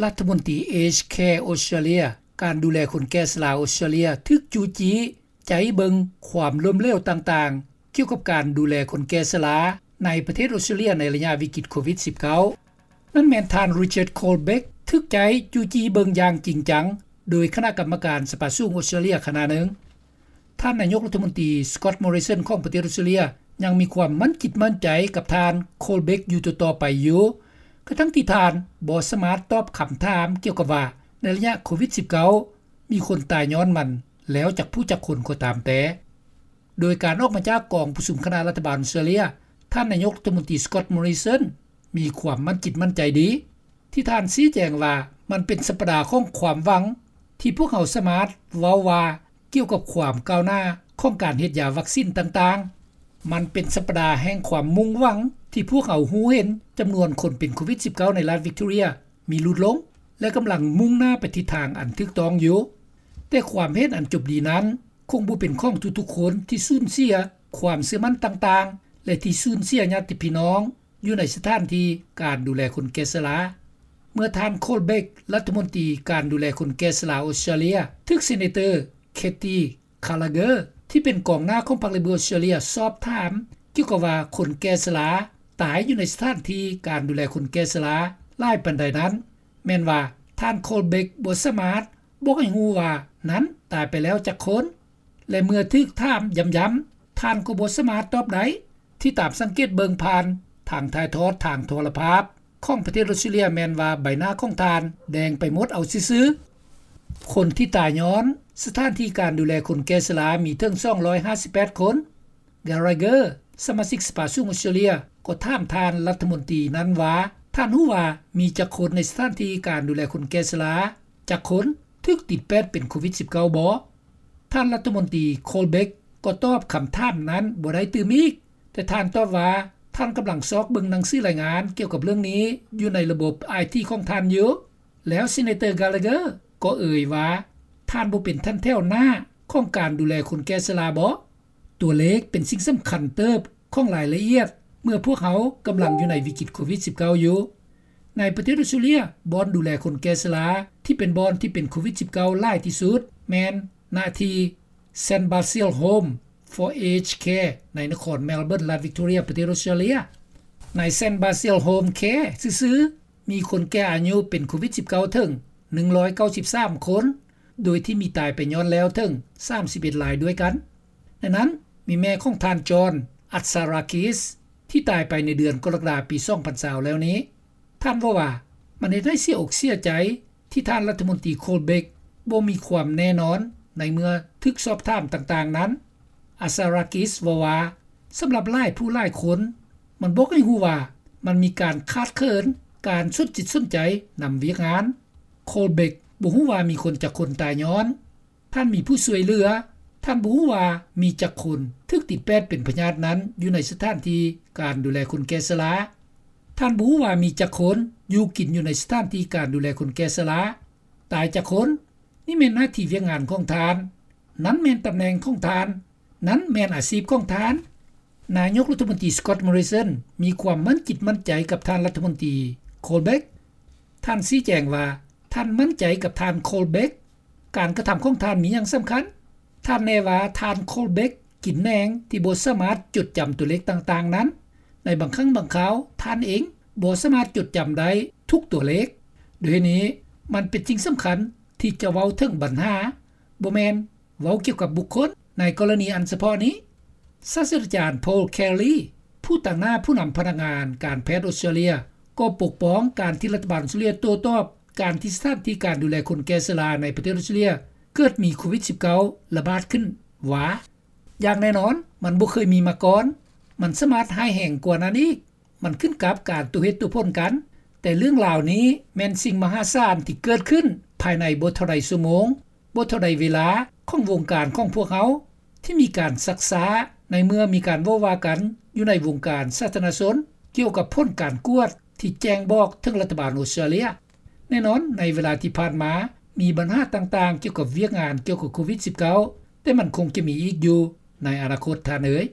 ລັດຖະມົນຕີ Aged Care Australia ການດູແລຄົນແກ່ຊະລາອົດສະຕຣາເລຍ ຖືກຈູ້ຈີ້ໃຈເບິ່ງຄວາມລົ້ມເຫຼວຕ່າງໆ ກ່ຽວກັບການດູແລຄົນແກ່ຊະລາ ໃນປະເທດອົດສະຕຣາເລຍ ໃນໄລຍະວິກິດໂຄວິດ-19. ນັ້ນແມ່ນທ່ານ Richard Colbeck ຖືກໃຈຈູ້ຈີ້ເບິ່ງຢ່າງຈິງຈັງ ໂດຍຄະນະກຳມະການສະພາສູງອົດສະຕຣາເລຍຄະນະໜຶ່ງ. ທ່ານນາຍົກລັດຖະມົນຕີ Scott Morrison ຂອງປະເທດອົດສະຕຣາເລຍ ຍັງມີຄວາມໝັ້ນຈິດໝັ້ນໃຈກັບທ່ານ Colbeck ຢູ່ຕໍ່ໆໄປຢູ່ ກະທັ່ງທີ່ທ່ານບໍ່ສາມາດຕອບຄຳຖາມກ່ຽວກັບວ່າ ໃນໄລຍະໂຄວິດ-19 ມີຄົນຕາຍຍ້ອນມັນແລ້ວຈັກຜູ້ຈັກຄົນກໍຕາມແຕ່. ໂດຍການອອກມາຈາກກອງປະຊຸມຄະນະລັດຖະບານອົດສະຕຣາເລຍ, ທ່ານນາຍົກລັດຖະມົນຕີ Scott Morrison ມີຄວາມໝັ້ນຈິດໝັ້ນໃຈດີ ທີ່ທ່ານຊີ້ແຈງວ່າ ມັນເປັນສັບປະດາຂອງຄວາມຫວັງ ທີ່ພວກເຮົາສາມາດເວົ້າວ່າກ່ຽວກັບຄວາມກ້າວໜ້າຂອງການເຮັດຢາວັກຊິນຕ່າງໆ. ມັນເປັນສັບປະດາແຫ່ງຄວາມມຸ່ງຫວັງ ທີ່ພວກເຮົາຮູ້ເຫັນຈຳນວນຄົນເປັນໂຄວິດ-19 ໃນລັດ Victoria ມີຫຼຸດລົງ ແລະ ກຳລັງມຸ່ງໜ້າໄປທິດທາງອັນຖືກຕ້ອງຢູ່. ແຕ່ຄວາມເຫັນອັນຈົບດີນັ້ນ ຄົງບໍ່ເປັນຂອງທຸກໆຄົນທີ່ສູນເສຍຄວາມເຊື່ອໝັ້ນຕ່າງໆ ແລະ ທີ່ສູນເສຍຍາດຕິພີ່ນ້ອງຢູ່ໃນສະຖານທີ່ການດູແລຄົນແກ່ຊະລາ. ເມື່ອທ່ານ Colbeck ລັດຖະມົນຕີການດູແລຄົນແກ່ຊະລາອົດສະຕຣາເລຍ ຖືກ Senator Katie Gallagher ທີ່ເປັນກອງໜ້າຂອງພັກ Labor ອົດສະຕຣາເລຍ ສອບຖາມກ່ຽວກັບວ່າຄົນແກ່ຊະລາຕາຍຢູ່ໃນສະຖານທີ່ການດູແລຄົນແກ່ຊະລາຫຼາຍປານໃດນັ້ນ ແມ່ນວ່າທ່ານ Colbeck ບໍ່ສາມາດບອກໃຫ້ຮູ້ວ່ານັ້ນຕາຍໄປແລ້ວຈັກຄົນ ແລະ ເມື່ອຖືກຖາມຢ້ຳໆ ທ່ານກໍບໍ່ສາມາດຕອບໄດ້. ທີ່ຕາມສັງເກດເບິ່ງຜ່ານທາງຖ່າຍທອດທາງໂທລະພາບຂອງປະເທດອົດສະຕຣາເລຍ ແມ່ນວ່າໃບໜ້າຂອງທ່ານແດງໄປໝົດເອົາຊື່ໆ. ຄົນທີ່ຕາຍຍ້ອນສະຖານທີ່ການດູແລຄົນແກ່ຊະລາມີເຖິງສອງຮ້ອຍຫ້າສິບແປດຄົນ. Gallagher ສະມາຊິກສະພາສູງອົດສະຕຣາເລຍ ກໍຖາມທ່ານລັດຖະມົນຕີນັ້ນວ່າ ທ່ານຮູ້ວ່າມີຈັກຄົນໃນສະຖານທີ່ການດູແລຄົນແກ່ຊະລາຈັກຄົນຖືກຕິດແປດເປັນໂຄວິດ-19 ບໍ່? ທ່ານລັດຖະມົນຕີ Colbeck ກໍຕອບຄຳຖາມນັ້ນບໍ່ໄດ້ຕື່ມອີກ, ແຕ່ທ່ານຕອບວ່າ ທ່ານກຳລັງຊອກເບິ່ງໜັງສືລາຍງານກ່ຽວກັບເລື່ອງນີ້ຢູ່ໃນລະບົບໄອທີຂອງທ່ານຢູ່. ແລ້ວ Senator Gallagher ກໍເອີຍວ່າ ທ່ານບໍ່ເປັນຖັນແຖວໜ້າຂອງການດູແລຄົນແກ່ຊະລາບໍ? ຕົວເລກເປັນສິ່ງສຳຄັນເຕີບຂອງລາຍລະອຽດ ເມື່ອພວກເຮົາກຳລັງຢູ່ໃນວິກິດໂຄວິດ-19 ຢູ່. ໃນປະເທດອົດສະຕຣາເລຍ ບ່ອນດູແລຄົນແກ່ຊະລາທີ່ເປັນບ່ອນທີ່ເປັນໂຄວິດ-19 ຫຼາຍທີ່ສຸດ ແມ່ນນະທີ່ Saint Basil Home for Aged Care ໃນນະຄອນ Melbourne ລັດ Victoria ປະເທດອົດສະຕຣາເລຍ. ໃນ Saint Basil Home Care ຊື່ໆ ມີຄົນແກ່ອາຍຸເປັນໂຄວິດ-19 ເຖິງໜຶ່ງຮ້ອຍເກົ້າສິບສາມຄົນ ໂດຍທີ່ມີຕາຍໄປຍ້ອນແລ້ວເຖິງສາມສິບເອັດລາຍດ້ວຍກັນ. ໃນນັ້ນມີແມ່ຂອງທ່ານ John Atsarakis ທີ່ຕາຍໄປໃນເດືອນກໍລະກະດາປີສອງພັນຊາວແລ້ວນີ້. ທ່ານເວົ້າວ່າ ມັນເຮັດໃຫ້ເສຍອົກເສຍໃຈທີ່ທ່ານລັດຖະມົນຕີ Colbeck ບໍ່ມີຄວາມແນ່ນອນໃນເມື່ອຖືກສອບຖາມຕ່າງໆນັ້ນ. Atsarakis ເວົ້າວ່າ ສຳລັບຫຼາຍຜູ້ຫຼາຍຄົນ ມັນບອກໃຫ້ຮູ້ວ່າມັນມີການຂາດເຂີນການສົນຈິດສົນໃຈນຳວຽກງານ. Colbeck ບໍ່ຮູ້ວ່າມີຄົນຈັກຄົນຕາຍຍ້ອນ ທ່ານມີຜູ້ຊ່ວຍເຫຼືອ, ທ່ານບໍ່ຮູ້ວ່າມີຈັກຄົນຖືກຕິດແປດເປັນພະຍາດນັ້ນຢູ່ໃນສະຖານທີ່ການດູແລຄົນແກ່ຊະລາ, ທ່ານບໍ່ຮູ້ວ່າມີຈັກຄົນຢູ່ກິນຢູ່ໃນສະຖານທີ່ການດູແລຄົນແກ່ຊະລາ, ຕາຍຈັກຄົນ. ນີ້ແມ່ນໜ້າທີ່ວຽກງານຂອງທ່ານ, ນັ້ນແມ່ນຕຳແໜ່ງຂອງທ່ານ, ນັ້ນແມ່ນອາຊີບຂອງທ່ານ. ນາຍົກລັດຖະມົນຕີ Scott Morrison ມີຄວາມໝັ້ນຈິດໝັ້ນໃຈກັບທ່ານລັດຖະມົນຕີ Colbeck. ທ່ານຊີ້ແຈງວ່າ ທ່ານໝັ້ນໃຈກັບທ່ານ Colbeck. ການກະທຳຂອງທ່ານມີຫຍັງສຳຄັນ? ທ່ານແນ່ວ່າທ່ານ Colbeck ກິນແໜງທີ່ບໍ່ສາມາດຈົດຈຳຕົວເລກຕ່າງໆນັ້ນ. ໃນບາງຄັ້ງບາງຄາວ ທ່ານເອງບໍ່ສາມາດຈົດຈຳໄດ້ທຸກຕົວເລກ. ດ້ວຍນີ້ ມັນເປັນສິ່ງສຳຄັນທີ່ຈະເວົ້າເຖິງບັນຫາ, ບໍ່ແມ່ນເວົ້າກ່ຽວກັບບຸກຄົນ. ໃນກໍລະນີອັນສະເພາະນີ້ ສາດສະດາຈານ Paul Kelly ຜູ້ຕາງໜ້າຜູ້ນຳພະນັກງານການແພດອົດສະຕຣາເລຍ ກໍປົກປ້ອງການທີ່ລັດຖະບານອົດສະຕຣາເລຍໂຕ້ຕອບ ການທີ່ສະຖານທີ່ການດູແລຄົນແກ່ຊະລາໃນປະເທດອົດສະຕຣາເລຍເກີດມີໂຄວິດ-19 ລະບາດຂຶ້ນວ່າ ຢ່າງແນ່ນອນມັນບໍ່ເຄີຍມີມາກ່ອນ, ມັນສາມາດຮ້າຍແຮງກວ່ານັ້ນອີກ, ມັນຂຶ້ນກັບການຕົວເຫດຕົວຜົນກັນ. ແຕ່ເລື່ອງລາວນີ້ແມ່ນສິ່ງມະຫາສານທີ່ເກີດຂຶ້ນພາຍໃນບໍ່ເທົ່າໃດຊົ່ວໂມງ, ບໍ່ເທົ່າໃດເວລາຂອງວົງການຂອງພວກເຮົາ ທີ່ມີການຊັກຊ້າ ໃນເມື່ອມີການເວົ້າວ່າກັນຢູ່ໃນວົງການສາທາລະນະຊົນ ກ່ຽວກັບຜົນການກວດທີ່ແຈ້ງບອກເຖິງລັດຖະບານອົດສະຕຣາເລຍ. ແນ່ນອນໃນເວລາທີ່ຜ່ານມາ ມີບັນຫາຕ່າງໆກ່ຽວກັບວຽກງານກ່ຽວກັບໂຄວິດ-19, ແຕ່ມັນຄົງຈະມີອີກຢູ່ໃນອະນາຄົດ, ທ່ານເອີຍ.